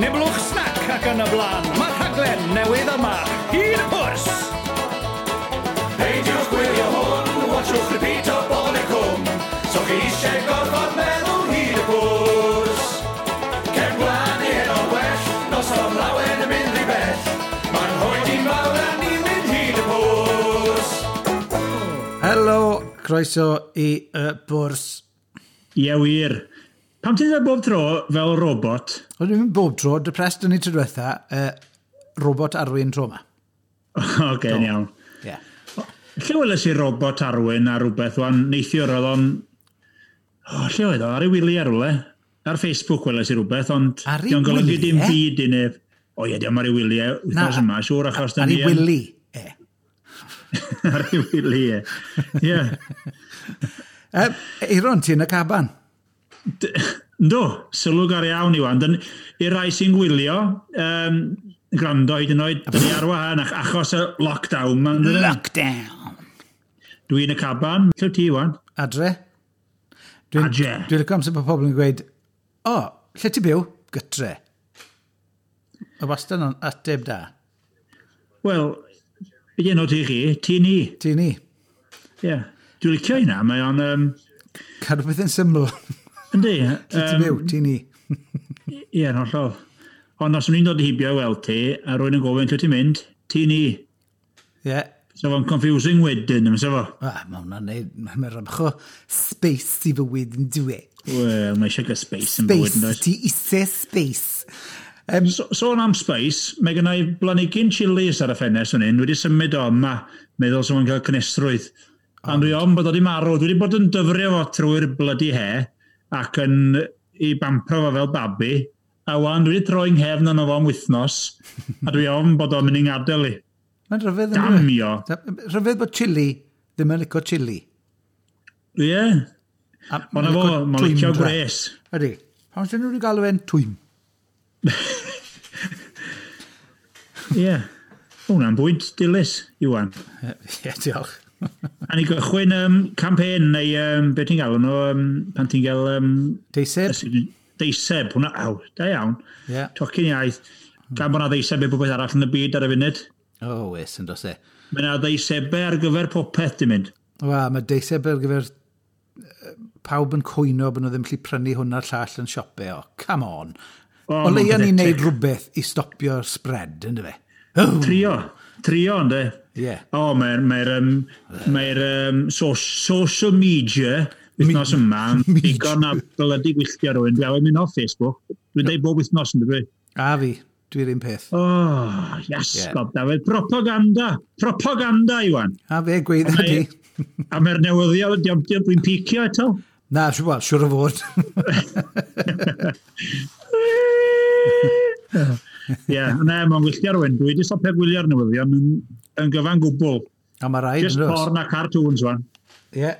Niblwch snac ac yn y blaen. Mae'r rhaglen newydd yma, Hyd y Pwrs! Peidiwch gwylio hwn, watchwch repeat o Bobol y Cwm. So chi eisiau gorfod meddwl hyd y pwrs. Cefn Gwlad neu heno well, noson lawen yn mynd rhy bell. Mae'n rhoi fawr a ni'n mynd hyd y pwrs. Helo, croeso i y bwrs. Ie, wir. Pam ti'n dweud bob tro fel robot? Wel, dwi'n mynd bob tro, depressed o'n i tro diwetha, robot Arwyn tro yma. Oce, okay, iawn. Ie. Yeah. Lle weles i robot Arwyn ar rhywbeth, wan, neithiwr oedd o'n... O, lle oedd o? Ar ei wyliau rhywle. Ar Facebook weles i rhywbeth, ond... Ar ei Dio'n golygu dim wyliau? byd i neb. O ie, dio'm ar ei wyliau wythnos yma, siŵr, achos... Ar ei wili, e. Ar ei wyliau, ie. Ie. Eiron, ti yn y caban. Yndw, sylw gar iawn, Iwan. I'r rai sy'n gwylio, gwrando hyd yn oed, dyn ni ar wahân achos y lockdown. Ma, yndydyn? Lockdown. Dwi yn y caban. Lle wyt ti, Iwan? Adre. Adre. Dwi'n licio amser bod pobl yn gweud, o, lle ti byw? Gytre. Y wastad yn ateb da. Wel, be di enw ti chi? Ti ni. Ti ni. Ie. Yeah. Dwi'n licio hynna, mae o'n... Cadw beth yn syml. Yndi. Lle ti byw? Ti ni. Ie, yn hollol. Ond os o'n i'n dod heibio i weld ti, a rwy'n yn gofyn lle ti'n mynd, ti ni. Ie. Yeah. So fo'n confusing wedyn, ym fo? Ah, mae hwnna'n neud, mae'n rhybch o space i fywyd yn dwi. Wel, mae eisiau gael space yn bywyd, yn Space, does? ti eisiau space. So, sôn am space, mae gen i blanhigyn chilis ar y ffenest fan hyn, wedi symud o yma, meddwl swn i'n cael cynnesrwydd. Ond dwi ofn bod o wedi marw, dwi wedi bod yn dyfrio fo trwy'r bloody he, ac yn i bampro fo fel babi, a wan dwi wedi troi nghefn arno fo am wythnos, a dwi ofn bod o'n mynd i'n gadael i. Mae'n rhyfedd yn dyw e? Damio. Rhyfedd bod chili ddim yn licio chili. Ie. A Ond na fo, mae'n licio twymdra. gwres. Ydy. Pam sy'n nhw wedi galw e'n twym? Ie. Hwna'n bwynt dilys, Iwan. Ie, diolch. A ni gychwyn campaign neu beth ti'n galw nhw, pan ti'n gael Deiseb? Deiseb, hwnna, aw, da iawn. Ie. Tocyn iaith. Gan bod na ddeiseb i popeth arall yn y byd ar y funud. O, wes, yn dos e. Mae yna ddeisebau ar gyfer popeth, ti'n mynd. Wel, mae deiseb ar gyfer pawb yn cwyno bod nhw ddim gallu prynu hwn a'r llall yn siopau. O, come on. O, O leia mae'n ni'n neud pathetic. rhywbeth i stopio'r spread, ynddo fe? Trio, trio, ynddo. Ie. O, mae'r social media wythnos yma yn digon a blydi gwylltio rhywun. Dwi'n awyd mynd off Facebook. Dwi'n deud bob wythnos yn dwi. A fi, dwi'n un peth. O, oh, iasgob, Dafydd. Propaganda. Propaganda, Iwan. A fe, gweud di. A mae'r newyddion, dwi'n picio eto. Na, wel, siwr o fod. Ie, na, mae'n gwylltio rhywun. Dwi wedi stopio gwylio'r newyddion yn gyfan gwbl. A mae rhaid, Just yn does? porn a cartoons, wan. Ie.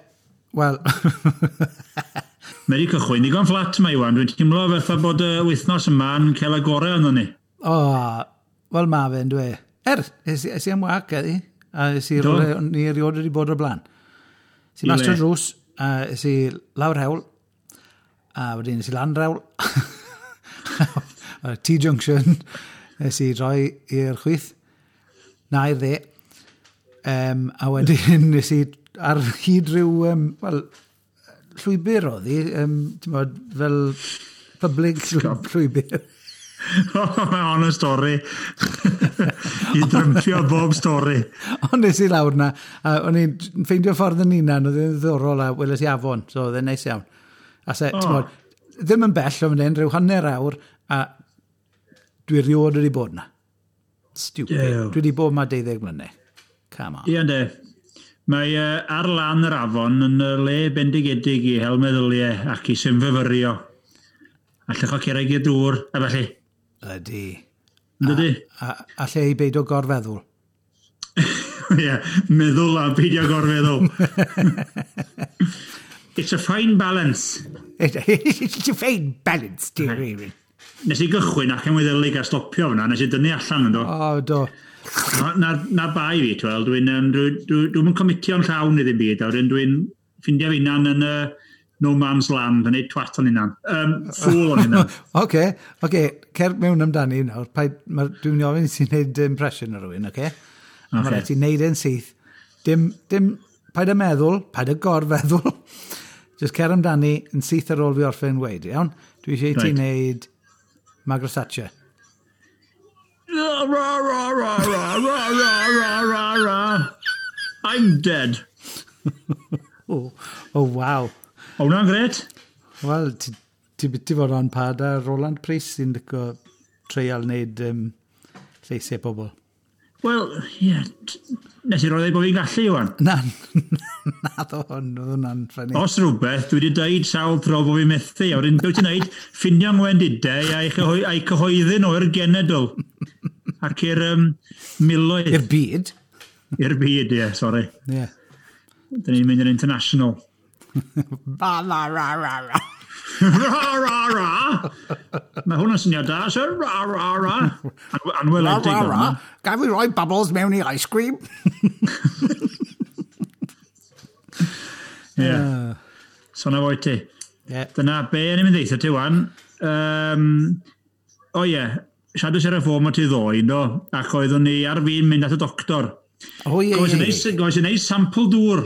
Wel, Mae wedi cychwyn digon fflat mae, Iwan. Dwi'n teimlo fatha bod y wythnos yma'n cael y gorau yno ni. o, wel ma fe, yn dwi. Es i am wac, eddi. A es i Do. rywle, ni erioed wedi bod o'r blaen. Es i I mas le? trwy'r drws, a es i lawr hewl, a wedyn es i lan hewl. T-junction, es i droi i'r chwith, na i'r dde. A wedyn es i ar hyd rhyw, wel, llwybr oedd hi, ti'n bod, fel public llwybr. Mae hon yn stori. I drympio bob stori. Ond nes i lawr na, a o'n i'n ffeindio ffordd yn hunan, oedd e'n ddiddorol a weles i afon, so oedd e'n neis iawn. A se, oh. Bod, ddim yn bell o fan hyn, rhyw hanner awr, a dwi rioed wedi bod na. Stupid. Duw. Dwi wedi bod yma 12 mlynedd. Come on. Ie, yndê. Mae ar lan yr afon yn y le bendigedig i hel meddyliau ac i synfyfyrio. A lluchio cerrig i'r dŵr, a felly. Ydy. Yn dydy? A lle i beidio gorfeddwl. Ie, meddwl a beidio gorfeddwl. It's a fine balance. It's a fine balance, dear Eirin. Nes i gychwyn ac yn weddelig a stopio fyna, nes i dynnu allan yn do. O, do. Na bai fi, ti'n weld, dwi'n dwi, dwi, dwi'm yn comitio'n llawn i ddim byd, a wedyn dwi'n ffindio fi hunan yn no man's land, yn neud twat o'n hunan. Fool o'n hunan. Oce, cer mewn amdani nawr. Dwi'n mynd i ofyn i ti'n neud impression o rhywun, oce? A mae rhaid ti'n neud e'n syth. Dim, paid â meddwl, paid â gorfeddwl. Just cer amdani yn syth ar ôl fi orffen weud, iawn? Dwi eisiau i ti wneud Margaret Thatcher. Ra, ra, ra, ra, ra, ra, ra, ra, ra, ra. I'm dead. Oh, wow. O, hwnna'n gret. Wel, ti biti fod on par â Roland Price sy'n licio treial wneud lleisiau pobl. Wel, ie, yeah, nes i roi bod fi'n gallu, Iwan. Na, na ddo hwn, oedd hwnna'n funny. Os rhywbeth, dwi wedi dweud sawl tro bod fi'n methu. A wedyn, beth ti'n neud? Ffindio ngwendidau a'i cyhoeddi nhw i'r genedl. Ac i'r miloedd. I'r byd. I'r byd, ie, sori. Ie. Yeah. Dyn ni'n mynd yn international. Ba, la, ra, ra, ra. Ra, ra, ra! Mae hwn yn syniad da, sir. Ra, ra, ra. Anweledig. Ra, ra, ra. Gaf fi roi bubbles mewn i ice cream? Ie. So na fo i ti. Yeah. Dyna be o'n i'n mynd ddeutha ti wan. O ie, siarad ar y ffôn o ti ddoe, do, ac oeddwn ni ar fin mynd at y doctor. O ie, ie. Gofys i wneud sampl dŵr.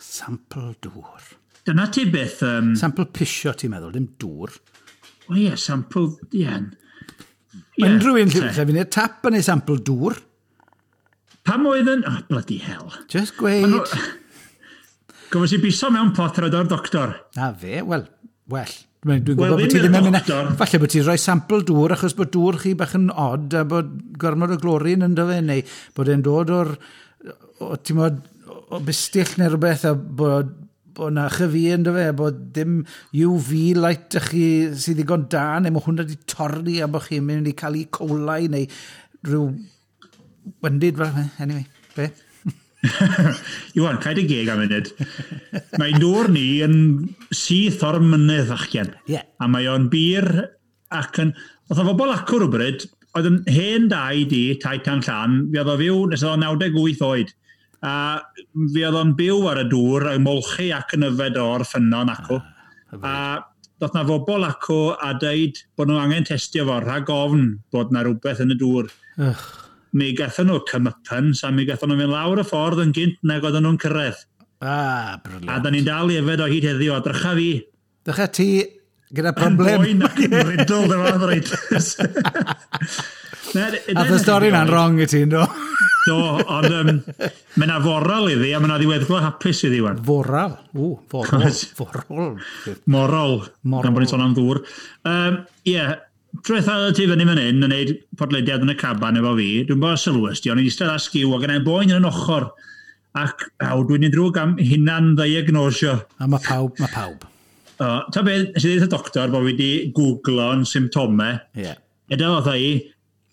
Sampl dŵr. Dyna ti beth. Sampl pisio, ti'n meddwl, dim dŵr. O ie, sampl, ie. Mae unrhyw un lle fi'n neud tap yn ei sampl dŵr. Pam oedd yn... Oh, bloody hell. Just gweud. Gofys i biso mewn pot ar o'r doctor. Na fe, wel, well. Dwi'n gwybod bod ti ddim yn mynd. Falle bod ti'n rhoi sampl dŵr achos bod dŵr chi bach yn odd a bod gormod o glorin ynddo fe, neu bod e'n dod o'r, ti'n modd, o bistill neu rhywbeth a bod na chyfi ynddo fe, bod dim UV light ych chi sydd ddigon da, neu mae hwnna wedi torri a bod chi'n mynd i cael E. coli neu rhyw wendid fel anyway, be? Iwan, cael dy geg am munud. Mae dŵr ni yn syth o'r mynydd, fachgen. Yeah. A mae o'n bir ac yn... Oedd o bobl acw rhywbryd, oedd yn hen dau di, tai tan llan, fi oedd o fyw nes oedd o'n 98 oed. A fi oedd o'n byw ar y dŵr, yn molchi ac yn yfed o'r ffynnon acw. A doedd na fobl acw a deud bod nhw angen testio fo rhag ofn bod na rhywbeth yn y dŵr. Ugh. Mi gathon nhw comeuppance a mi gathon nhw fynd lawr y ffordd yn gynt nag oedden nhw'n cyrraedd. Ah, brilliant. A da ni'n dal i yfed o hyd heddiw, a drycha fi. Drycha ti gyda problem. Yn boen ac yn riddled efo arthritis. A y stori na'n wrong i ti, do? Do, ond mae yna foral iddi, a mae yna ddiweddglo hapus iddi, wan. Foral? O, forol. Forol. Morol. Morol. Gan bod ni'n sôn am ddŵr. Ie, trwyth oedd ti fyny fan hyn yn gwneud podlediad yn y caban efo fi, dwi'n bod sylwys di, ond i'n eistedd ar sgiw ac yn boen yn ochr. Ac aw, dwi'n ei drwg am hunan ddiagnosio. A mae pawb, mae pawb. Ta beth, nes i ddweud y doctor bod fi wedi googlo'n symptomau. Ie. Yeah. Edrych oedd i,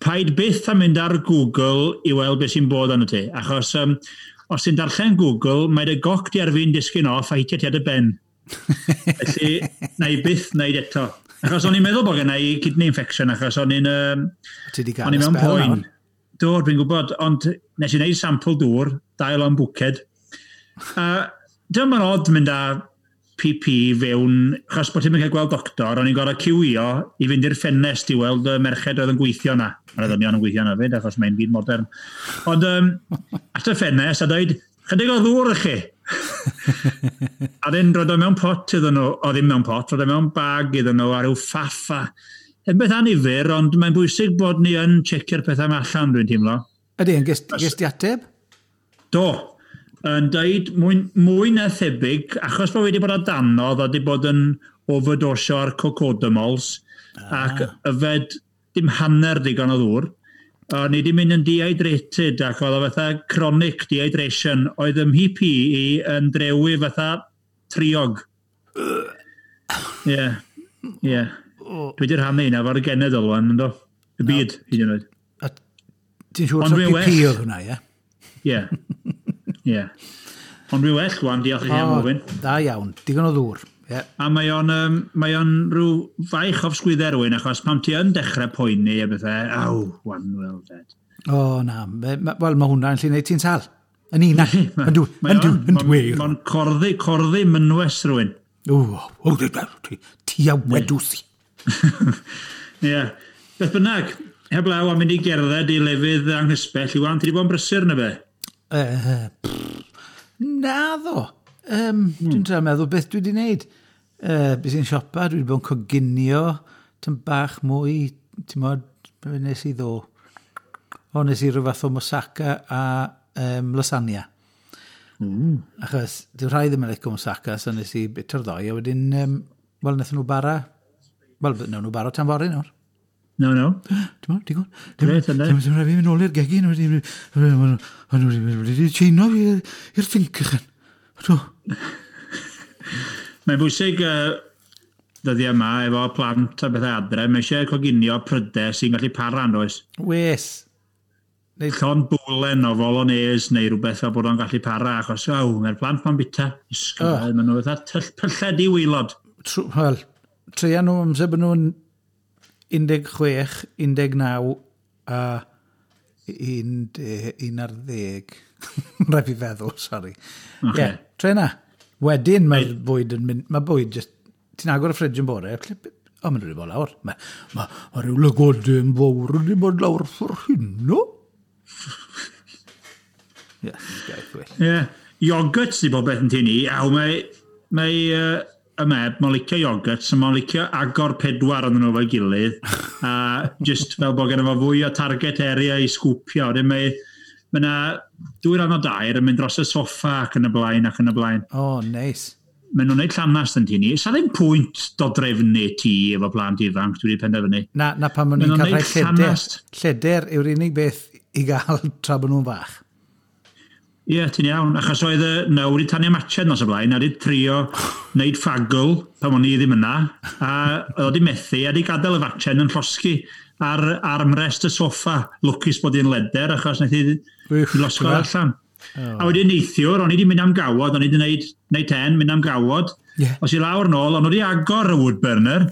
paid byth am mynd ar Google i weld beth sy'n bod arno ti. Achos os ti'n darllen Google, mae dy goc di ar fin disgyn off a hitio ti ar dy ben. Felly, na i byth wneud eto. Achos o'n i'n meddwl bod gen i kidney infection, achos o'n i'n Ti 'di gael o'n i y mewn spell poen. nawr. Do, dwi'n gwybod, ond nes i wneud sampl dŵr, dau lon bwced. A dyma ma'n od mynd â PP fewn, achos bod ti'n cael gweld doctor, o'n i'n gorfod ciwio i fynd i'r ffenest i weld y merched oedd yn gweithio na. Mae'r ddynion yn gweithio na fyd, achos mae'n byd modern. Ond at y ffenest a dweud, chydig o ddŵr i chi. A dyn roed o mewn pot iddyn nhw, o ddim mewn pot, roed o mewn bag iddyn nhw a rhyw ffaffa. Yn beth annifyr, ond mae'n bwysig bod ni yn checio'r pethau yma allan, dwi'n teimlo. Ydy, yn ges di ateb? Do, yn deud mwy na thebyg, achos bod wedi bod o danodd a wedi bod yn overdosio ar cocodamols ac yfed dim hanner digon o ddŵr, o'n i wedi mynd yn dehydrated ac oedd o fatha chronic dehydration, oedd ym mhP i yn drewi fatha triog. Ie, ie. Dwi wedi rhannu hynna efo'r genedl wan, ynddo? Y byd, hyd yn oed. A ti'n siŵr Ond taw dwi'n PP well. oedd hwnna, ie? Ie. Ie. Ond dwi'n well wan, diolch i chi am ofyn. Da iawn, digon o ddŵr. Ie. A mae o'n, mae o'n rhyw faich off sgwydau rhywun, achos pam ti yn dechrau poeni a bethau, aw, wan, well dead. O, na. Wel, mae hwnna'n gallu gwneud ti'n sal. Yn un, yndw, Mae yndw, o'n- yndw. Mae'n corddi mynwes rhywun. O, ti a wedws i. Ie. Beth bynnag, heblaw am mynd i gerdded i lefydd anghysbell, Iwan, ti wedi bod yn brysur na be? Naddo. Dwi'n trio meddwl beth dwi wedi wneud. Bys i'n siopa, dwi wedi bod yn coginio, tym bach mwy, ti'n modd, be nes i ddo? O, nes i rhyw fath o moussaka a lasagna. Achos, dyw rhai ddim yn licio moussaka, so nes i bito'r ddoi, a wedyn, wel, wnaethon nhw bara, wel, wnawn nhw bara tan fory nawr. No, no. Ti'n modd, ti'n gwybod? Grêt, ynde? Ti'n rhaid fi mynd nôl i'r gegin, wedi tseino fi i'r sinc ychan. Do. Mae'n bwysig dyddiau yma efo plant a bethau adre, mae eisiau coginio prydau sy'n gallu para, yn does? Wes. Llond bwlen o bolognese neu rhywbeth fel bod o'n gallu para, achos aw, mae'r plant ma'n bita. Oh. Maen nhw fatha pyllau di waelod. Wel, treia nhw amser bod nhw'n 16, 19 a 11. Rhaid fi feddwl, sori. Ie, Ocê. yeah, tre na. Wedyn mae'r bwyd yn mynd. Mae bwyd just. Ti'n agor y ffridge yn bore, o, maen nhw wedi bod lawr. Mae rhyw lygodyn fawr wedi bod lawr ffor hynno. Yes, gaeth well. Ie. Yeah. Iogurt sydd bob beth yn tŷ ni. Aw, mae y meb, mae'n licio iogurt, so mae'n licio agor pedwar yn nhw efo'i gilydd, a just fel bod gen fo fwy o target area i sgwpio. Wedyn mae yna dwy ran o dair yn mynd dros y soffa ac yn y blaen ac yn y blaen. O, oh, neis. Maen nhw'n gwneud llanast yn tŷ ni. Sa ddim pwynt dodrefnu tŷ efo plant ifanc, dwi wedi penderfynu. Na pan maen nhw'n Maen nhw'n cael rhai neud lleder. llanast. Lleder yw'r unig beth i gael tra bod nhw'n fach. Ie, ti'n iawn. Achos oedd y no wedi tanio matchen nos o blaen, a wedi trio wneud ffagl pan o'n i ddim yna, a oedd wedi methu, a wedi gadael y fatchen yn llosgi ar armrest y soffa. Lwcus bod hi'n leder, achos wnaeth hi Uff, losgo ti'n gweld? allan. A wedyn neithiwr, o'n i wedi mynd am gawod, o'n i wedi gwneud 10, mynd am gawod. Ie. Os i lawr nôl, o'n nhw wedi agor y wood burner,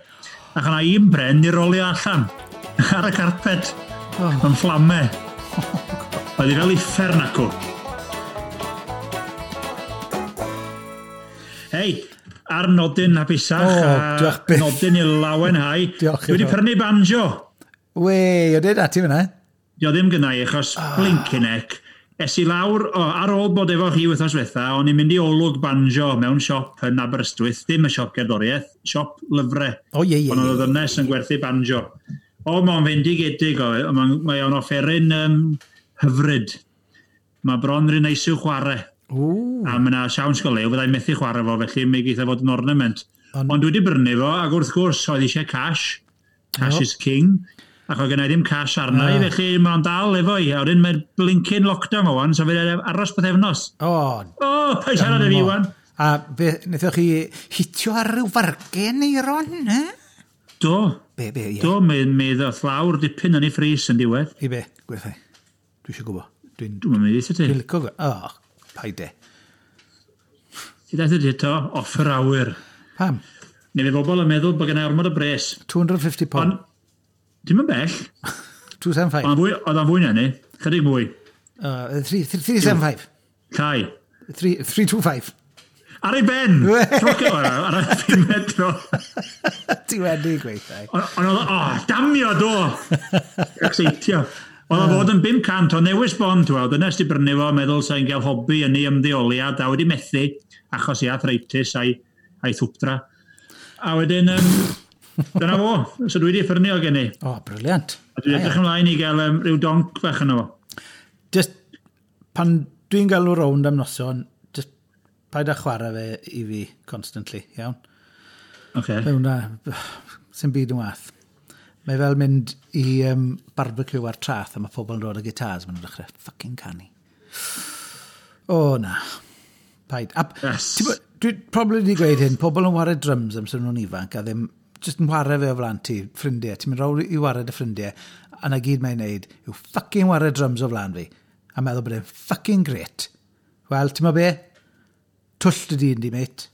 ac o'na un bren i rolio allan ar y carpet, yn fflamau. Oedd hi fel uffern acw. Hei, ar nodyn hapusach, O, a diolch byth. nodyn i lawenhau. Diolch Dwi wedi iddo. prynu banjo. Wei, o dweud ati fyna? Dio ddim gynna i, achos blinking heck. Es i lawr, o, ar ôl bod efo chi wythnos ddiwetha, o'n i'n mynd i olwg banjo mewn siop yn Aberystwyth, ddim y siop gerddoriaeth, siop lyfrau. O, ie, ie, Ond ie. oedd y ddynes yn gwerthu banjo. O, mae'n fendigedig o, mae o'n offeryn hyfryd. Mae bron rhy neis i'w chwarae. Ww. A mae yna siawns go lew, fyddai'n methu chwarae fo, felly mi geith o fod yn ornament. Ond dwi wedi brynu fo, ac wrth gwrs, oedd eisiau cash. Cash is king. Ac oedd gennai ddim cash arna i, felly mae'n dal efo i. A wedyn mae'r blinking lockdown o wan, so fydd aros pythefnos. O, O, paid siarad â fi, wan. A be, wnaethoch chi hitio ar ryw fargen, Eiron, eh? Do, Be, ie. do, mi ddoth lawr dipyn yn ei frys yn diwedd. I be, gwerthau. Dwi eisiau gwybod. Dwi'n Dwi'n mynd i ti. Dwi'n licio. O, paid e. Ti daeth i to, off yr awyr. Pam? Neu fe bobl yn meddwl bod gennai ormod o bres. 250 pound. Ond, dim yn bell. 275. Oedd o'n fwy na ni. Chydig mwy. 375. Llai. 325. Ar ei ben! Trocio ar y pumed tro. Ti wedi gweithio. Ond oedd, o, damio do! Exeitio. Oedd o fod yn 500 o newis bond, ti'n weld, dyna di brynu fo, meddwl sa'n gael hobi yn ei ymddeoliad, a wedi methu, achos i arthritis a'i thwpdra. A wedyn, dyna fo, so dwi wedi ffyrnu o gen i. O, briliant. A dwi'n edrych ymlaen i gael rhyw donc fach yno fo. Just, pan dwi'n galw rownd am noson, just paid â chwarae fe i fi constantly, iawn? Okay. Mae hwnna, sy'n byd yn wath. Mae fel mynd i barbecue ar traeth a mae pobl yn dod â gitars, maen nhw'n dechrau fucking canu. O, na. Paid. A, Yes. ti'n bo- dwi probably wedi gweud hyn, pobl yn ware drums amser nhw'n ifanc a ddim, just yn ware fe o flaen ti, ffrindiau. Ti'n mynd rownd i ware dy ffrindiau, a na gyd mae'n neud yw fucking ware drums o flaen fi. A meddwl bod e'n fucking great. Wel, ti'n mo be? Twll dy dyn di, mate.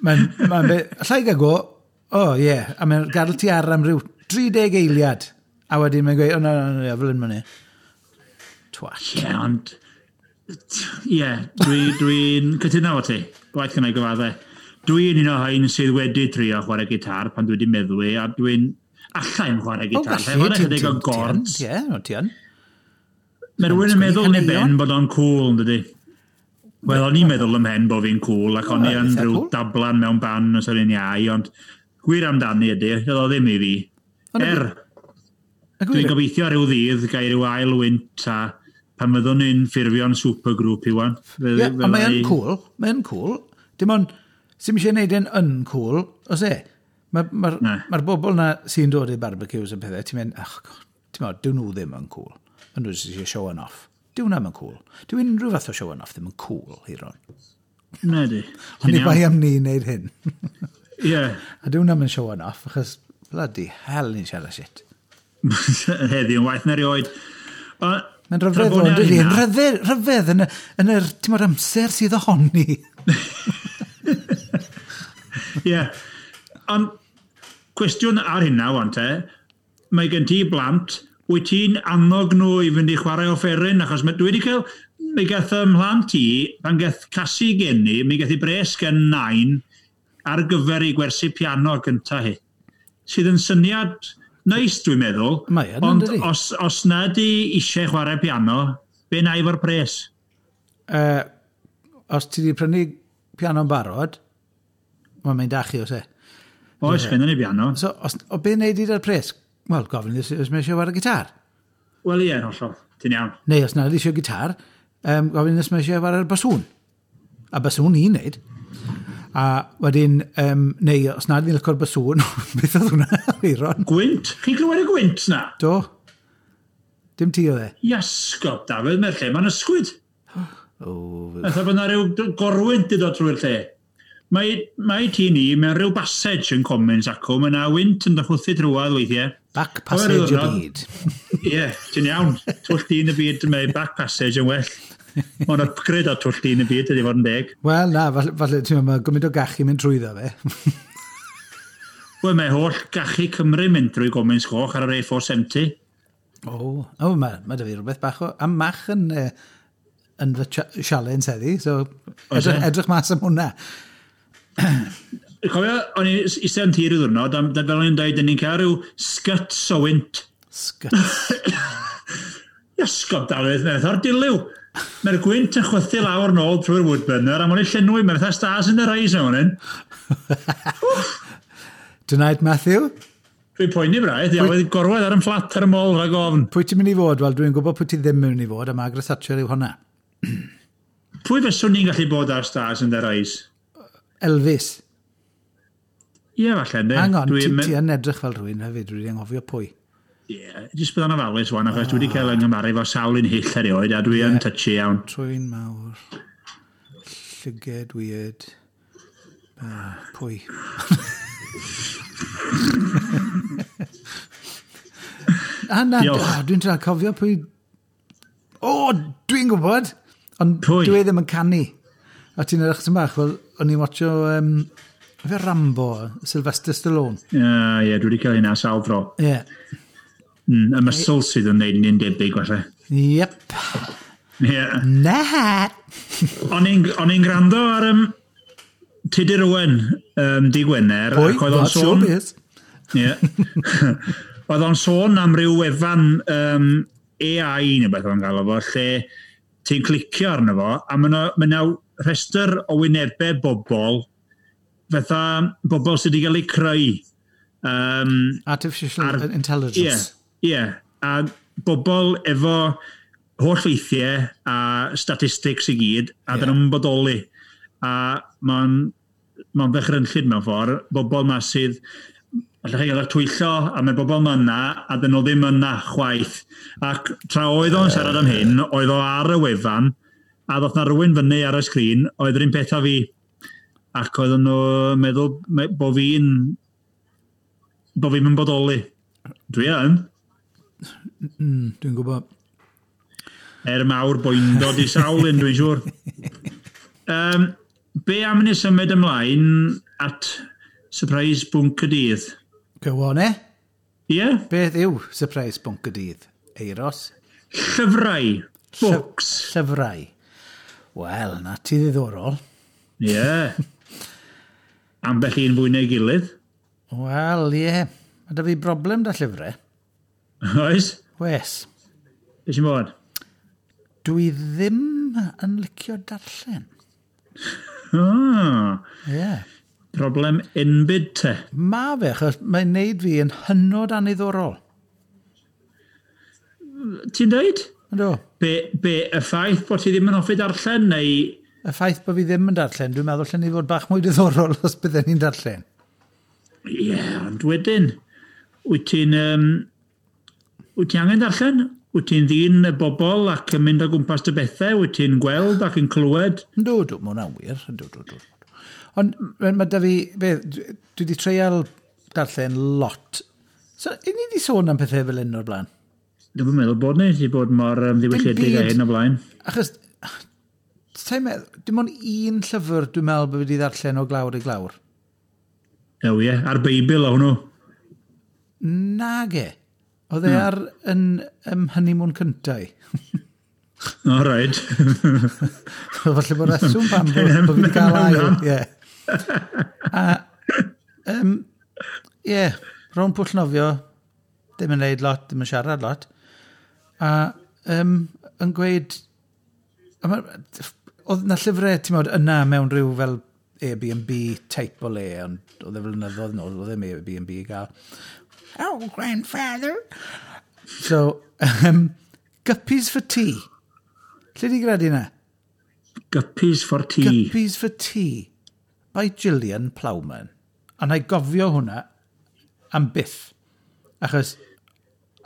Mae'n be, allai gael go, o oh, ie, yeah. A mae'n gadael ti ar am ryw 30 eiliad. A wedyn mae'n gweud, o na, na, na, fel hyn mae'n e. Twat. Ie, ond Ie, yeah, dwi'n dwi cytuno efo ti. Gwaith gynna i gyfadde. Dwi'n un o rhain sydd wedi trio chwarae gitar pan dwi wedi meddwi, a dwi'n allai'n chwarae gitar. O, gallu, ti'n o gords. Ie, no, ti yn. Mae rhywun yn meddwl yn ei ben bod o'n cool, yn dydi? Wel, o'n i'n meddwl ym mhen bod fi'n cool, ac o'n i yn rhyw dablan mewn ban os o'n i'n iau, ond gwir amdani ydy, oedd o ddim i fi. Er, dwi'n gobeithio rhyw ddydd gael rhyw ail wynt a pan fyddwn ni'n ffurfio'n supergroup i wan. Ie, ond mae'n cool, mae'n cool. Dim ond, sy'm eisiau gwneud e'n uncool, os e? Mae'r ma, ma, ma bobl na sy'n dod i barbecues yn pethau, ti'n mynd, ach, ti'n mynd, dyw nhw ddim yn cool. Maen nhw jyst eisiau showing off. Dyw hwnna yn cool. Dyw unrhyw fath o showing off ddim yn cool, Hiron. Na di. Ond i bai am ni wneud hyn. Ie. Yeah. A dyw hwnna yn showing off, achos bloody hell ni'n siarad shit. Heddiw yn waeth na erioed. Mae'n rhyfedd o'n dydi? Yn rhyfedd, rhyfedd yn, yn yr, ti'n modd, amser sydd ohoni. Ie. Yeah. Ond cwestiwn ar hynna, wan te, mae gen ti blant, wyt ti'n annog nhw i fynd i chwarae offeryn? Achos mae, dwi wedi cael, mi gath ym mhlant i, pan gath Casi geni, mi gath i bres gen nain ar gyfer ei gwersi piano gynta hi. Sydd yn syniad neis, dwi'n meddwl. Mae yn, ond dydi? os na di eisiau chwarae piano, be na i fo'r pres? Os ti wedi prynu piano'n barod, mae'n mynd â chi, oes e? Oes, yeah. Ni piano. So, os, o be wneud i da'r pres? Wel, gofyn os mae eisiau chwarae gitar. Wel, ie, hollol. Ti'n iawn. Neu os nad eisiau gitar, gofyn os mae eisiau chwarae'r basŵn. A basŵn i'n neud. A wedyn, neu os nad i'n licio'r basŵn, beth oedd hwnna, Eiron? Gwynt? Chi'n clywed y gwynt na? Do. Dim ti oedd e? Iasgob, Dafydd, mae'r lle mae'n ysgwyd. Oh, Fatha bod yna rhyw gorwynt i ddod trwy'r lle. Mae tŷ ni mewn rhyw passage yn Commons acw, mae yna wynt yn dychwthu drwadd weithiau. Back passage y byd. Ie, ti'n iawn. Twll dyn y byd, mae back passage yn well. Mae'n upgrade o twll dyn y byd, ydy fod yn deg. Wel, na, falle, ti'n meddwl, mae gymaint o gachu mynd trwyddo fe. Wel, mae holl gachu Cymru mynd drwy Gomins Goch ar yr A470. O, oh, mae da fi rhywbeth bach o... A mach yn, yn fy sialens heddi, so edrych mas am hwnna. Cofio, o'n i'n eistedd yn tir i ddwrnod, a fel o'n i'n dweud, ni'n cael rhyw sguts o wynt. Sguts. Iasgob, Dafydd, mae'n fatha'r dilyw. Mae'r gwynt yn chwythu lawr nôl trwy'r woodburner, a mae'n ei llenwi, mae'n fatha stars in the eyes mewn hyn. Tonight, Matthew? Dwi'n poeni braidd, ia, wedi gorwedd ar yn fflat ar y mol rhag ofn. Pwy ti'n mynd i fod? Wel, dwi'n gwybod pwy ti ddim yn mynd i fod, a Margaret Thatcher yw hwnna. Pwy fyswn ni'n gallu bod ar stars in their eyes? Elvis. Ie, falle, ynddi. Hang on, ti yn edrych fel rhywun hefyd, dwi wedi anghofio pwy. Ie, yeah, jyst bydd o'n ofalus wan, achos dwi wedi cael yng Nghymru efo sawl un hyll erioed, a dwi yn touchy iawn. Trwyn mawr, llyged weird, pwy? A na, dwi'n trio cofio pwy... O, dwi'n gwybod! Ond pwy? Dwi ddim yn canu. A ti'n edrych sy'n bach, wel, o'n i'n watcho... Fe Rambo, Sylvester Stallone. Ie, yeah, dwi wedi cael hynna sawl tro. Ie. Yeah. Y muscles sydd yn neud ni'n debyg, falle. Yep. Ie. Na! O'n i'n gwrando ar Tudur Owen, di Gwener. Pwy? Ac oedd o'n That's sôn... showbiz. Ie. Oedd o'n sôn am ryw wefan AI neu beth o'n galw fo, lle ti'n clicio arno fo, a mae yna rhestr o wynebau bobl, fatha bobl sydd wedi cael eu creu. Artificial intelligence. Ie, yeah, a bobl efo holl ffeithiau a statistics i gyd, a dyn nhw'n bodoli. A mae'n ma ddychrynllyd mewn ffordd, bobl ma sydd, allech chi gael eich twyllo, a mae bobl ma yna, a dyn nhw ddim yna chwaith. Ac tra oedd o'n siarad am hyn, oedd o ar y wefan, a ddoth na rhywun fyny ar y sgrin, oedd yr un peth â fi. Ac oedden nhw'n meddwl bod fi'n yn bodoli. Dwi yn. Dwi'n gwybod. Er mawr boendod i sawl un, dwi'n siŵr. Be am ni symud ymlaen at surprise bwnc y dydd? Go on, eh? Ie? Yeah? Beth yw surprise bwnc y dydd? Eiros? Llyfrau. Books. Llyfrau. Wel, na ti ddiddorol. Ie. Yeah. Ambell un fwy neu gilydd. Wel, ie. Yeah. Mae da fi broblem da llyfrau. Oes? Wes. Be sy'n bod? Dwi ddim yn licio darllen. Oh. Ie. Yeah. Problem enbyd te. Ma fe, achos mae'n neud fi yn hynod aniddorol. Ti'n dweud? Yndw. Be, y ffaith bod ti ddim yn hoffi darllen, neu? Y ffaith bod fi ddim yn darllen, dwi'n meddwl allan ni fod bach mwy diddorol os bydden ni'n darllen. Ie, yeah, ond wedyn, wyt ti angen darllen? Wyt ti'n ddyn y bobl ac yn mynd o gwmpas dy bethau? Wyt ti'n gweld ac yn clywed? Yndw, dw, mae hwnna'n wir. Yndw, dw, dw. Ond mae da fi, be, dwi wedi treial darllen lot. So, i ni wedi sôn am pethau fel hyn o'r blaen? Dwi'n meddwl bod ni wedi bod mor ddiwylliedig â hyn o blaen. Achos, ti'n meddwl, dim ond un llyfr dwi'n meddwl bod fi wedi ddarllen o glawr i glawr. Ew, ie, a'r Beibl o hwnnw. Nage. Oedd e ar yn honeymoon cyntau. O, right. Falle bod reswm pam bod fi wedi cael ail. Ie. A, ie, rownd pwll nofio, ddim yn neud lot, ddim yn siarad lot. A yn gweud, oedd na llyfrau, ti'n modd, yna mewn rhyw fel Airbnb type o le, ond oedd e flynyddoedd nôl, oedd e'n Airbnb i gael. Oh, grandfather! So, Guppies for Tea. Lle di gredu na? Guppies for Tea. Guppies for Tea by Gillian Plowman. A na i gofio hwnna am byth. Achos,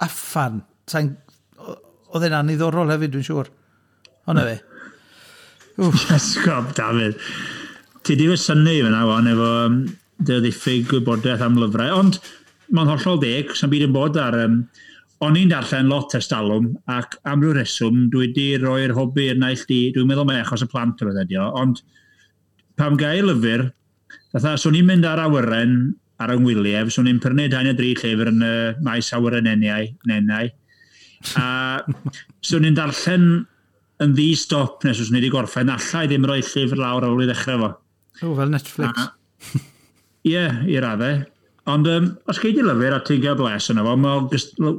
uffan, oedd e'n aniddorol hefyd, dwi'n siŵr. Ond fe. Esgob, Dafydd. Ti di fy synnu fyna, wan, efo dy ddiffyg gwybodaeth am lyfrau. Ond mae'n hollol deg, sa'n byd yn bod ar. O'n i'n darllen lot ers talwm, ac am ryw reswm, dwi wedi roi'r hobi i'r naill di, dwi'n meddwl mai achos y plant o beth ydi o, ond pam gael lyfr, fatha, swn i'n mynd ar awyren ar yng ngwyliau, swn i'n prynu 2 neu 3 llyfr yn y maes awyren nenau, a swn i'n darllen yn ddi-stop nes swn i wedi gorffen, alla i ddim rhoi llyfr lawr ar ôl i ddechrau fo. O, fel Netflix. Ie, i raddau. Ond os gei di lyfr a ti'n cael bles yna fo, mae'n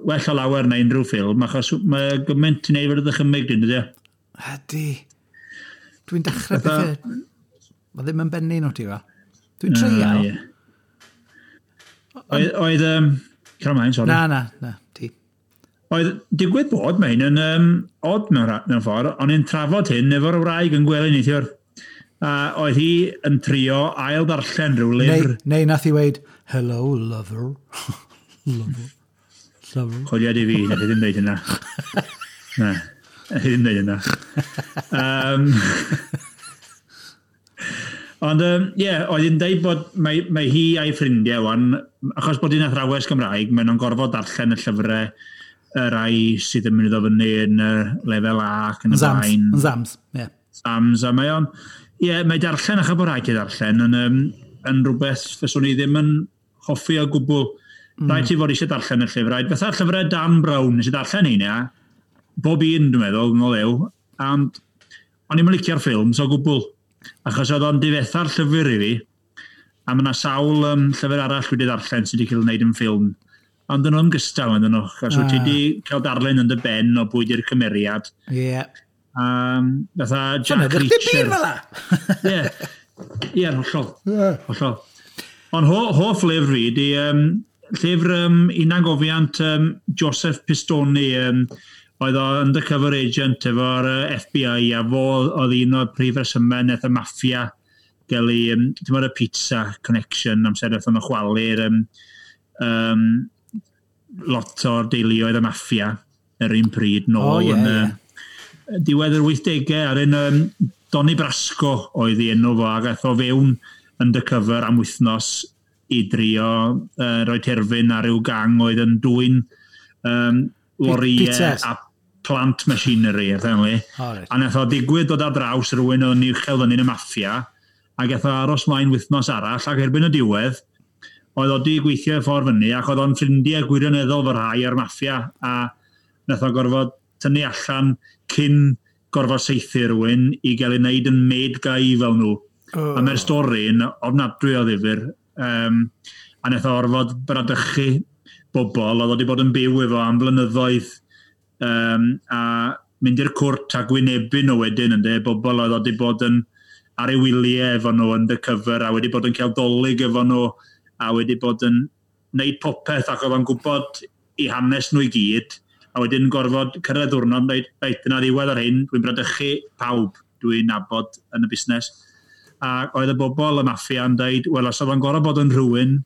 well o lawer na unrhyw ffilm, achos mae gymaint ti'n neud fod y ddychymyg dyn, dydy? Ydy. Dwi'n dechrau pethau. Mae ddim yn bennu nhw ti fel. Dwi'n treial. Oedd, Cael ymlaen, sori. Na, ti. Oedd, digwydd bod mae hyn yn odd mewn ffordd, o'n i'n trafod hyn efo'r wraig yn gwely neithiwr. A oedd hi yn trio ail ddarllen rhyw lyfr. Neu nath hi weid, "Hello, lover." Lover. Lover. Chwiliad i fi, nath hi ddim dweud hynna. Na, nath hi ddim dweud hynna. Ond, ie, oedd hi'n dweud bod mae hi a'i ffrindiau wan, achos bod hi'n athrawes Gymraeg, maen nhw'n gorfod darllen y llyfrau y rai sydd yn mynd i ddod fyny yn lefel A ac yn y blaen. Zams, ie. Zams, a mae o'n. Ie, mae darllen, achos bod rhaid i ddarllen, yn rhywbeth fyswn i ddim yn hoffi o gwbl. Rhaid ti fod eisiau darllen y llyfrau. Fatha'r llyfrau Dan Brown, nes i darllen un, ia. Bob un, dwi'n meddwl, yn o lew. Ond o'n i'm yn licio'r ffilms o gwbl. Achos oedd o'n difetha'r llyfr i fi. A mae yna sawl llyfr arall wedi darllen sydd wedi cael ei wneud yn ffilm. Ond dyn nhw'n gystal, yn nhw. Achos wyt ti wedi cael darllen yn dy ben o bwy di'r cymeriad. Ie. Yeah. Fatha Jack Reacher. Ie, ie, hollol. Hollol. Ond hoff lyfr fi di llyfr hunangofiant Joseph Pistone, oedd o undercover agent efo'r FBI, a fo oedd un o'r prif resymau wnaeth y maffia gael ei, ti'n meddwl y pizza connection, amser wnaethon nhw chwalu'r lot o'r deuluoedd y maffia yr un pryd nôl. Oh, yeah, yeah. Diwedd yr 80au, ar un Donnie Brasco oedd ei enw fo, ac aeth o fewn undercover am wythnos i drio rhoi terfyn ar ryw gang oedd yn dwyn lorïau a plant machinery, apparently. Oh, right. A nath o digwydd dod ar draws rhywun o'n uchel fyny yn y maffia, ac aeth o aros mlaen wythnos arall, ac erbyn y diwedd, oedd o di gweithio i ffordd fyny, ac oedd o'n ffrindiau gwirioneddol fy rhai o'r maffia, a nath o gorfod tynnu allan cyn gorfod saethu rhywun i gael ei wneud yn made guy fel nhw. Oh. A mae'r stori'n ofnadwy o ddifyr. A wnaeth o orfod bradychu bobl oedd wedi bod yn byw efo am blynyddoedd, a mynd i'r cwrt a gwynebu nhw wedyn, ynde, bobl oedd wedi bod yn ar ei wyliau efo nhw undercover a wedi bod yn cael Dolig efo nhw a wedi bod yn wneud popeth ac oedd o'n gwybod i hanes nhw i gyd, a wedyn gorfod cyrraedd diwrnod yn dweud, "Reit, dyna ddiwedd ar hyn, dwi'n bradychu pawb dwi'n nabod yn y busnes." A oedd y bobl y maffia yn dweud, "Wel, os oedd o'n gorfod bod yn rhywun,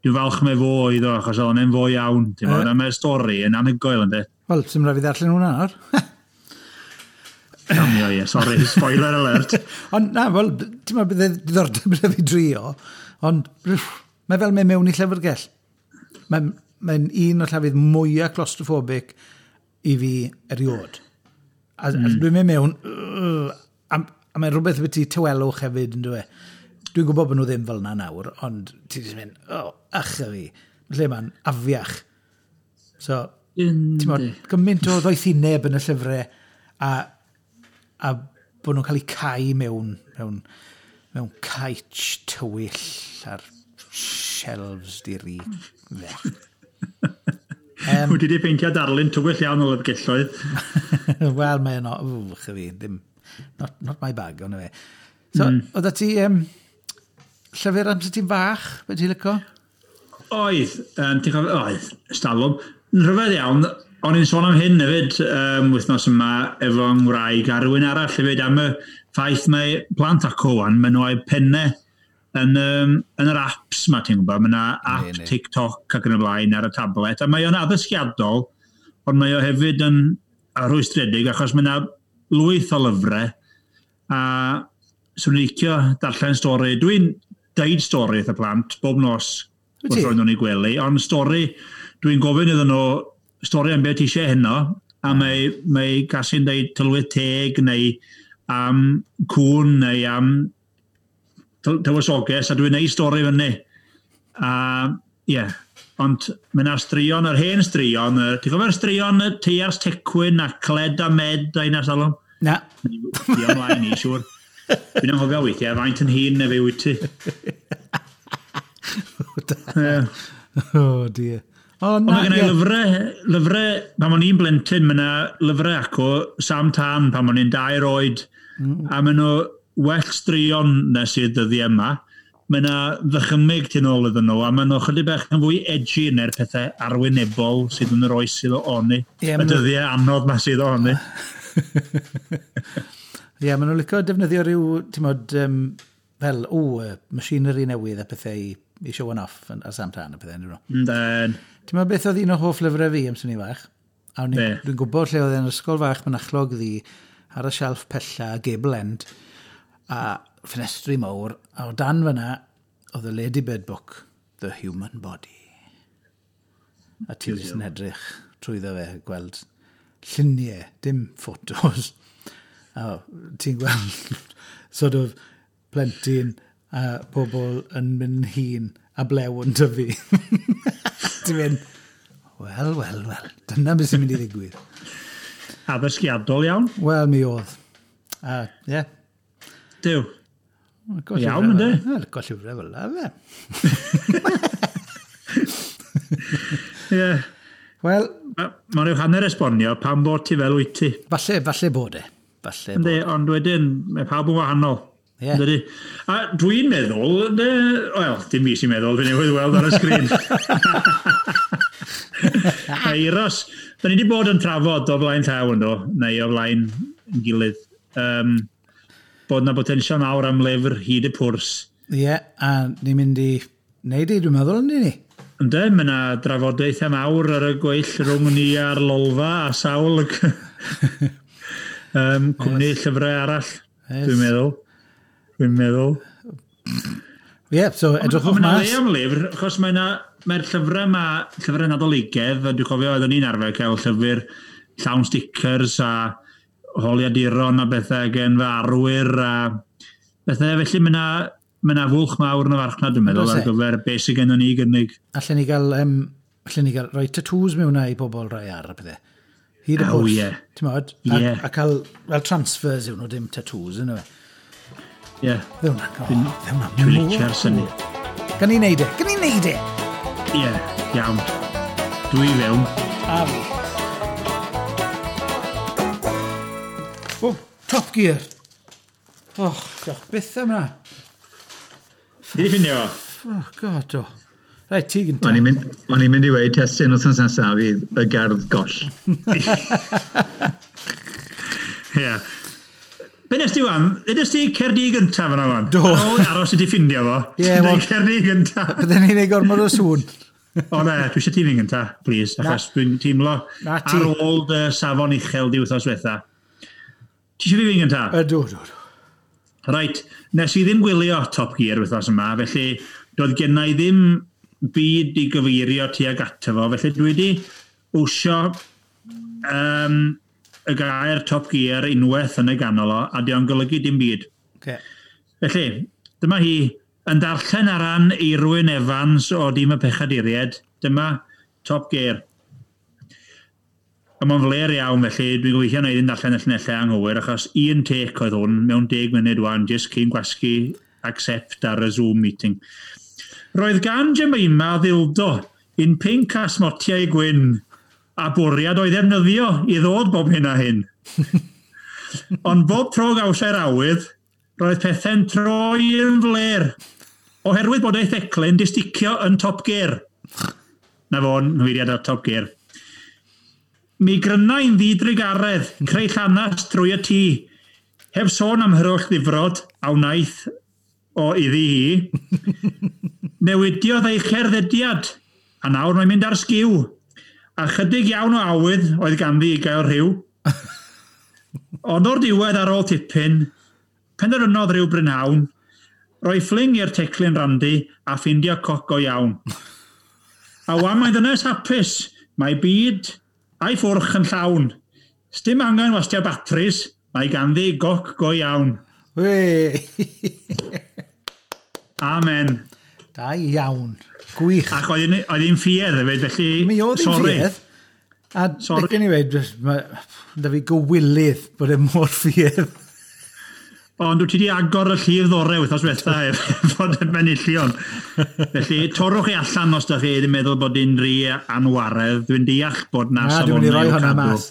dwi'n falch mai fo oedd o, achos oedd o'n fo iawn." Ti'n gwbod, a mae'r stori yn anhygoel, ynddi? Wel, sy'n rhaid fi ddarllen hwnna nawr. Damio, ie, sorry, spoiler alert. Ond na, wel, ti'n meddwl bydde diddordeb gyda fi drio, ond mae fel mynd mewn i llyfrgell. Mae'n un o'r llefydd mwyaf claustrophobic i fi eriod. A dwi'n mynd mewn, a mae'n rhywbeth beth tawelwch hefyd, yn dweud. Dwi'n gwybod bod nhw ddim fel yna nawr, ond ti jyst mynd, "Oh, ach a fi." Lle mae'n afiach. So, ti'n bod, gymaint o ddoethineb yn y llyfrau a bod nhw'n cael eu cau mewn caets tywyll ar shelves di-ri. Wyt ti wedi peintio darlun tywyll iawn o lyfrgelloedd. Wel, mae'n o, wch fi, ddim, not my bag, ond fe. So, oedd ti llyfr amser ti'n fach, beth ti'n licio? Oedd, ti'n cofio, oedd, stalwm. Yn rhyfedd iawn, o'n i'n sôn am hyn hefyd wythnos yma efo ngwraig a rhywun arall hefyd am y ffaith mae plant acw wan, maen nhw a'u pennau yn yr apps ma, ti'n gwybod, mae yna app TikTok ac yn y blaen ar y tablet, a mae o'n addysgiadol, ond mae o hefyd yn rhwystredig achos mae yna lwyth o lyfrau, a swn i'n licio darllen stori. Dwi'n deud stori wrth y plant bob nos Wyt ti? wrth roi nhw'n eu gwely, ond stori, dwi'n gofyn iddyn nhw stori am beth ti eisiau heno, a mae Casi'n deud tylwyth teg neu am cwn neu am tywysoges, a dwi'n neud stori fyny. A ie, yeah, ond mae yna straeon, yr hen straeon, ti'n cofio'r straeon y Teiars Tecwyn a Cled a Med a un ar salwm? Na. Di ymlaen i, siŵr. Dwi'n anghofio weithiau, faint yn hŷn na fi wyt ti. Ie. Oh, dear. O, Ond na, mae gen i lyfrau, pan o'n i'n blentyn, mae yna lyfrau acw, Sam Tân, pan o'n i'n 2 oed, a maen nhw well straeon nes i'r dyddiau yma. Mae yna ddychymyg tu nôl iddyn nhw, a maen nhw chydig bach yn fwy edgy na'r pethau arwynebol sydd yn yr oes sydd ohoni. Ie, y dyddiau anodd ma sydd ohoni. Ie, maen nhw'n licio defnyddio rhyw, ti'n modd, fel, o, machinery newydd a pethau i show off ar Sam Tân a pethau, ynddyn nhw. Ynden. Ti'n meddwl beth oedd un o hoff lyfrau fi amser ni fach? A Be? dwi'n gwybod lle oedd e'n ysgol fach Mynachlog Ddu ar y shelf pella, gable end, a ffenestri mawr, a o dan fyna oedd y Ladybird book, The Human Body. A ti jyst yn edrych trwyddo fe, gweld lluniau, dim ffotos. A ti'n gweld sort of plentyn a pobl yn mynd hŷn a blew yn tyfu. Ti'n mynd, "Wel, wel, wel, dyna beth sy'n mynd i ddigwydd." Addysgiadol iawn. Wel, mi oedd. A, ie. Yeah. Duw. Iawn, yndi? Wel, go llyfrau fel la, fe. Ie. Wel, Mae rhyw hanner esbonio pam bod ti fel wyt ti. Falle, falle bod e. Falle bod. Yndi, ond wedyn, mae pawb yn wahanol. Ie. Yndydi? A dwi'n meddwl, ynde, wel, dim fi sy'n meddwl, fi newydd weld ar y sgrin. Eiros, da ni wedi bod yn trafod o flaen llaw ynddo, neu o flaen yn gilydd, bod na potensial mawr am lyfr hyd y pwrs. Ie, yeah, a ni'n mynd i wneud i, dwi'n meddwl, yndyn ni? Ynde, mae yna drafodaethau mawr ar y gweill rhwng ni a'r Lolfa a sawl cwmni llyfrau arall, dwi'n meddwl. Dwi'n meddwl. Ie, yeah, so edrychwch Ond mae 'na mas. le am lyfr, achos mae'r llyfrau ma, llyfrau Nadoligedd, a dwi'n cofio oeddwn ni'n arfer cael llyfr llawn stickers a holiaduron a bethau gen fy arwyr a bethau. Felly mae 'na fwlch mawr yn y farchnad, dwi'n meddwl, Oes ar e? gyfer beth sydd gennym ni i gynnig. Allen ni gael rhoi tattoos mewn i bobl rai ar a pethau. Hyd y Oh, pwrs. ie. Ti'n modd? Ie. A cael, fel transfers yw nhw, dim tattoos, yna fe. Ie. Dde hwnna, oh, dde hwnna Dwi'n mor licio'r cool. syniad. Gan i neud e, gan i neud e! Ie, iawn. Dwi fewn. A fi. O, Top Gear. Oh, diolch byth am hwnna. Ti di ffindio fo? Oh, God, o. Reit, ti gynta. O'n i'n mynd i weud testun wythnos nesaf fydd y gerdd goll. Ie. Be nes ti wan? Be nes ti Cerdi gyntaf yna wan? Do. Ar ôl aros i ti ffindio fo. Ie, Deud wel- Cerdi gyntaf. Bydden ni'n ei gormod o sŵn. O na, dwi eisiau ti fynd gynta, please, achos dwi'n teimlo Na ti. ar ôl dy safon uchel di wythnos diwetha. Ti eisiau fi fynd gynta? Ydw, ydw, ydw. Reit, nes i ddim gwylio Top Gear wythnos yma, felly doedd genna i ddim byd i gyfeirio tuag ato fo, felly dwi wedi wsio y gair Top Gear unwaith yn y ganol o, a di o'n golygu dim byd. Okay. Felly, dyma hi yn darllen ar ran Eirwyn Evans o Dîm y Pechaduriaid. Dyma Top Gear. A mae'n fler iawn, felly dwi'n gobeithio na i ddim darllen y llinellau anghywir, achos un take oedd hwn mewn 10 munud wan, jyst cyn gwasgu accept ar y Zoom meeting. Roedd gan Jemima ddildo un pinc a smotiau gwyn, a bwriad o'i ddefnyddio i ddod bob hyn a hyn. Ond bob tro gawsai'r awydd, roedd pethau'n troi yn fler, oherwydd bod ei theclyn di sticio yn Top Gear. Na fo'n nghyfeiriad ar Top Gear. Mi gryna i'n ddidrugaredd, creu llanas trwy y tŷ, heb sôn am hyroll ddifrod a wnaeth o iddi hi. Newidiodd ei cherddediad, a nawr mae'n mynd ar sgiw. A chydig iawn o awydd oedd ganddi i gael rhyw. Ond o'r diwedd ar ôl tipyn, penderfynodd rhyw brynhawn, roi ffling i'r teclyn randi a ffindio coc go iawn. A wan mae'n ddynes hapus, mae byd a'i ffwrch yn llawn. Sdim angen wastio batris, mae ganddi goc go iawn. Wei! Amen. Da iawn. Gwych. Ac oedd hi'n ffiedd hefyd, felly... Mi oedd hi'n sorry. ffiedd. A Sorry. licen i weud, da fi gywilydd bod e mor ffiedd. Ond wyt ti wedi agor y llif ddore wythnos diwetha fod yn benillion. Felly, torrwch chi allan os da chi ddim meddwl bod hi'n rhy anwaredd. Dwi'n deall bod na Na, dwi'n mynd i roi safonau i'w hwnna cadw. mas.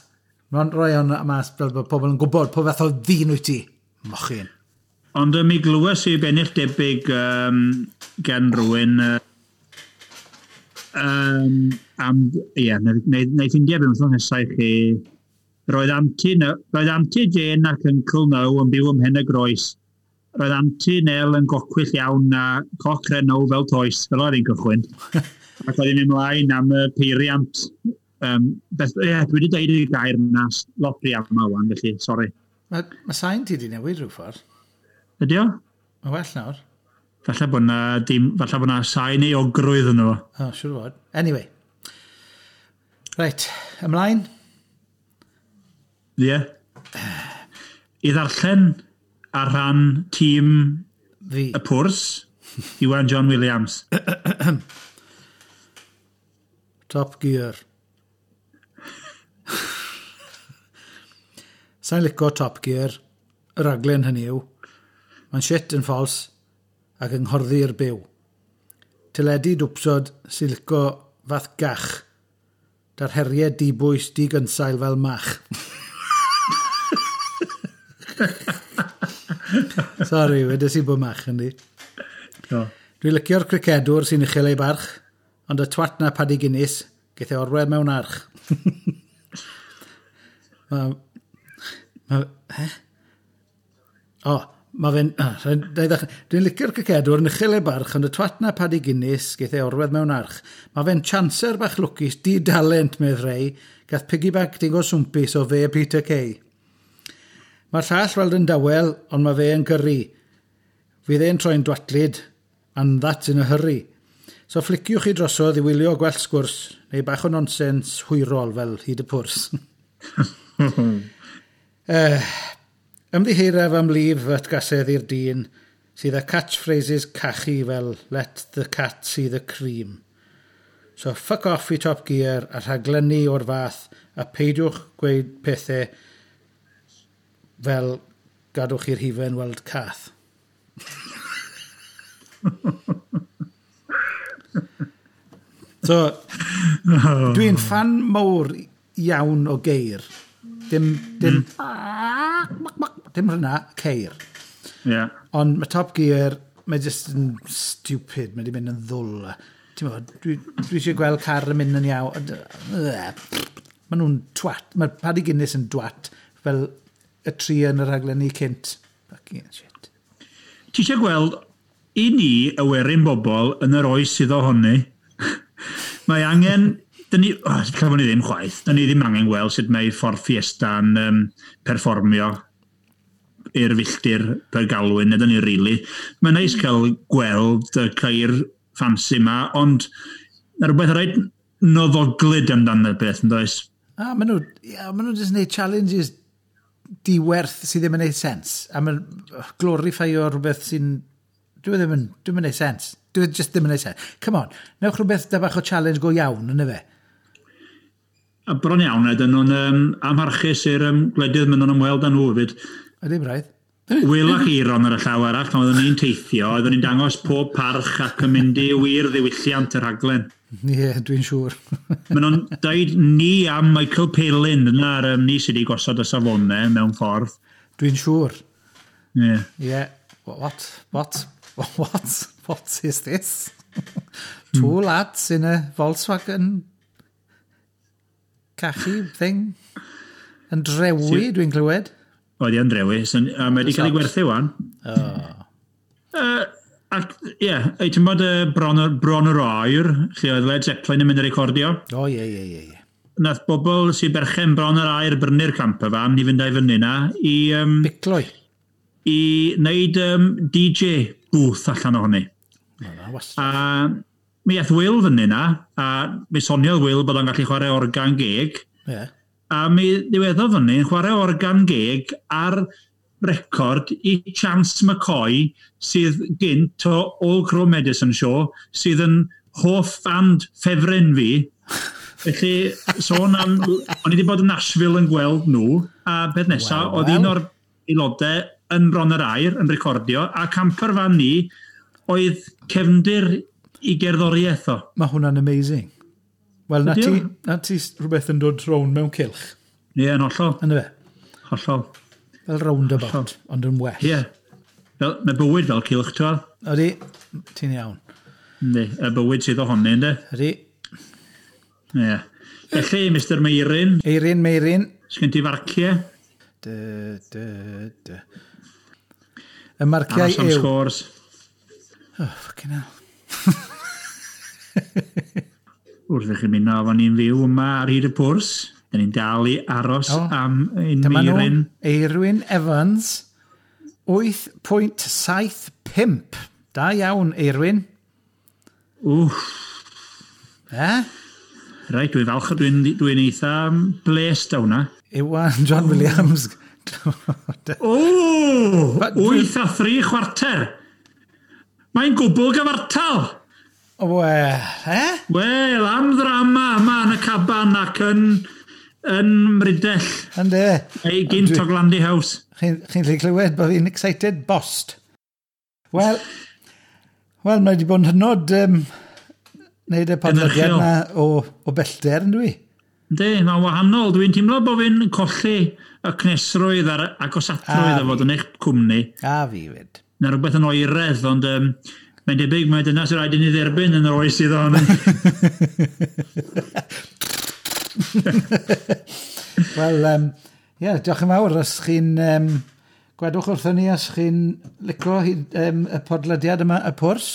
Mae'n rhoi hwnna mas fel bod pobl yn gwybod po fath o ddyn wyt ti. Mochyn. Ond mi glywes i bennill debyg gen rhywun am, ie, neu ffindio beth wythnos nesaf i chi. Roedd Auntie Jane ac Uncle Now yn byw ym Mhen y Groes. Roedd Auntie Nell yn gocwyll iawn a coc Renault fel toes, fel oedd hi'n cychwyn. Ac oedd hi'n mynd ymlaen am y peiriant. Ie, dwi wedi deud y gair yna lot rhy aml wan, felly, sori. Mae sain ti wedi newid rhyw ffordd. Ydy o? Mae well nawr. Falle bod na, dim, falle bod na sain euogrwydd yno fo. O, siŵr o fod. Anyway. Reit, ymlaen. Ie. I ddarllen ar rhan tîm Fi. y pwrs, Iwan John Williams. Top Gear. Sa'n lico Top Gear, y raglen hynny yw. Mae'n shit yn ffals ac yng nghorddi'r byw. Teledu dwpsod sy'n lico fath gach. Da'r heriau dibwys digynsail fel mach. Sori, wedes i bod mach yndi. Do. Dwi'n licio'r cricedwr sy'n uchel ei barch, ond y twat na Paddy Guinness, geith e orwedd mewn arch. Mae... Mae... He? O, mae fe'n... Dwi'n licio'r cricedwr yn uchel ei barch, ond y twat na Paddy Guinness, geith e orwedd mewn arch. Mae fe'n chancer bach lwcus, di-dalent, medd rei, gath piggyback digon swmpus o fe Peter Kay. Mae'r llall weld yn dawel, ond mae fe yn gyrru. Fydd e'n troi'n dwatlyd, and that's in a hurry. So ffliciwch chi drosodd i wylio gwell sgwrs, neu bach o nonsens hwyrol fel hyd y pwrs. Ymddiheiraf am lif atgasedd i'r dyn sydd â catchphrases cachu fel "Let the cat see the cream". So fuck off i Top Gear a rhaglenni o'r fath a peidiwch gweud pethau fel gadwch i'r hufen weld cath. So, dwi'n ffan mawr iawn o geir. Dim hynna, ceir. Ond mae Top Gear, mae jyst yn stupid, mae wedi mynd yn ddwl. Ti'n gwbod, dwi eisiau gweld car yn mynd yn iawn. Maen nhw'n twat. Mae Paddy Guinness yn dwat fel y tri yn y rhaglenni cynt. Fucking shit. Ti eisiau gweld, i ni, y werin bobl, yn yr oes sydd ohoni, mae angen. Dyn ni, oh, lle ni ddim chwaith, dyn ni ddim angen gweld sut mae Ford Fiesta'n perfformio i'r filltir per galwyn, ydyn ni rili. Mae'n neis cael gweld y ceir ffansi yma, ond mae rhywbeth reit noddoglyd amdano y beth, yn does? A maen nhw, yeah, maen nhw jyst yn gwneud challenges diwerth sydd ddim yn gwneud sens. A maen glorifio rhywbeth sy'n. Dwi ddim yn, dwi'm yn gwneud sens. Dwi just ddim yn gwneud sens. Come on, newch rhywbeth da bach o challenge go iawn, yna fe. A bron iawn, ydyn nhw'n amharchus i'r gwledydd maen nhw'n ymweld â nhw hefyd. Ydy, braidd. Wil ac Eiron ar y llaw arall, pan oeddwn ni'n teithio, oeddwn ni'n dangos pob parch ac yn mynd i wir ddiwylliant y rhaglen. Ie, yeah, dwi'n siŵr. Maen nhw'n dweud ni am Michael Palin, dyna'r ni sydd wedi gosod y safonau mewn ffordd. Dwi'n siŵr. Ie. Yeah. Yeah. What? What? What? What is this? Two lads in a Volkswagen cachu thing. Yn drewi, dwi'n clywed. Oedd hi'n drewi, a mae wedi cael ei gwerthu wan. Oh. Ac, ie, yeah, ti'n bod Bron yr Aur, lle oedd Led Zeppelin yn mynd i recordio. O, ie. Nath bobl sy'n berchen Bron yr Aur brynu'r camper van i fynd â'i fyny na i Bicloi. I wneud DJ booth allan ohoni. Na, wastad. A mi aeth Will fyny na, a mi soniodd Will bod o'n gallu chwarae organ geg. A mi ddiweddodd fyny yn chwarae organ geg ar record i Chance McCoy, sydd gynt o Old Crow Medicine Show, sydd yn hoff band ffefryn fi. Felly, sôn am. O'n i wedi bod yn Nashville yn gweld nhw, a beth nesaf, Wel, oedd wel. un o'r aelodau yn Bron yr Aur yn recordio, a camper fan ni oedd cefndir i gerddoriaeth o. Mae hwnna'n amazing. Wel, na Ydi ti, o? na ti rhywbeth yn dod rown mewn cylch. Ie, yn hollol. Yna fe? Hollol. Fel roundabout, ond yn well. Ie. Fel, mae bywyd fel cylch, ti'n gweld? Ydy, ti'n iawn. Yndi, y bywyd sydd ohoni, yndi? Ydy. Ie. Felly, Mr Meirin, Eirin, Meirin. sgen ti farciau? Dy, dy, dy. Y marciau Aros am yw. scores. Oh, fucking hell. Wrth i chi ymuno efo ni'n fyw yma ar hyd y pwrs. Dyn ni'n dal i aros O, am ein Dyma nhw, Meirin. Eirwyn Evans, 8.75. Da iawn, Eirwyn. Wff, Eh? reit, dwi'n falch, dwi'n eitha blessed â hwnna. Iwan John Williams. O, 8.75. Mae'n gwbl gyfartal. Wel, eh? Wel, am ddrama yma yn y caban ac yn Mrydell, Yndê. neu gynt o Glandy House. Chi'n gallu clywed bod fi'n excited bost. Wel, mae wedi bod yn hynod wneud y podlediad Gynhyrchiol. yma o bellter, yn dwi? Yndi, mae'n wahanol. Dwi'n teimlo bod fi'n colli y cnesrwydd a'r agosatrwydd A o fod yn eich cwmni. A fi fyd. Na rhywbeth yn oeredd, ond mae'n debyg mae dyna sy'n rhaid i ni dderbyn yn yr oes sydd ohoni. Wel, ie, diolch yn fawr os chi'n. Gwedwch wrthon ni os chi'n licio y podlediad yma, y pwrs.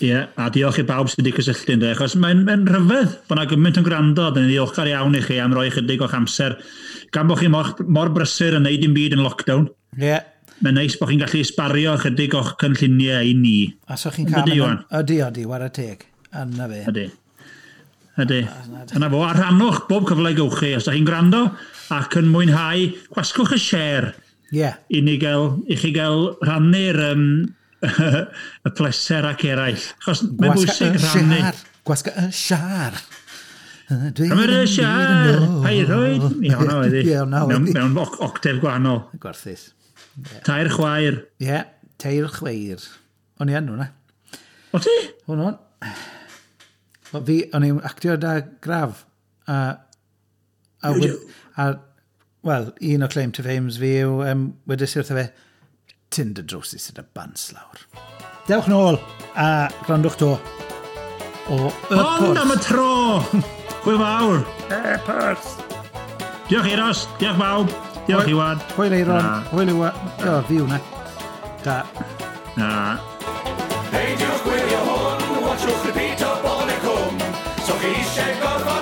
Ie, a diolch i bawb sydd wedi cysylltu ynddo, achos mae'n rhyfedd bod yna gymaint yn gwrando, dyn ni'n ddiolchgar iawn i chi am roi chydig o'ch amser. Gan bod chi mor brysur yn neud dim byd yn lockdown, Ie. Yeah. mae'n neis bod chi'n gallu sbario chydig o'ch cynlluniau i ni. A so chi'n cael Yndi, Iwan? Ydy, ydy, whare teg. Yna fe. Ydy. Ydy. Yna fo, a rhannwch bob cyfle gewch chi. Os da chi'n gwrando ac yn mwynhau, gwasgwch y share Ie. i chi gael rhannu'r y pleser ac eraill. Achos mae'n Gwasga bwysig y rhannu. share. Gwasga y siar. Cymryd y siar, pa'i rhoed. Ie, hwnna oedd hi. Ie, hwnna oedd hi. Mewn octef gwahanol. Gwarthus. Tair chwaer. Ie, tair chweir. O'n i yn hwnna. O ti? Hwn o'n. Wel, fi, o'n i'n actio da Graf. A, wel, un o claim to fames fi yw, wedes i wrtho fe, "Tyn dy drowsus sydd y bants lawr." Dewch nôl a gwrandwch to o Y Ond am y Porth. tro! Hwyl fawr! Y Porth. Diolch Euros, diolch bawb, diolch Iwan. Hwyl Eiron, Na. hwyl Iwan. O, fi hwnna. Da. Na. Peidiwch gwylio hwn, watchwch repeat o Bon y Cwm. So chi eisiau gorfod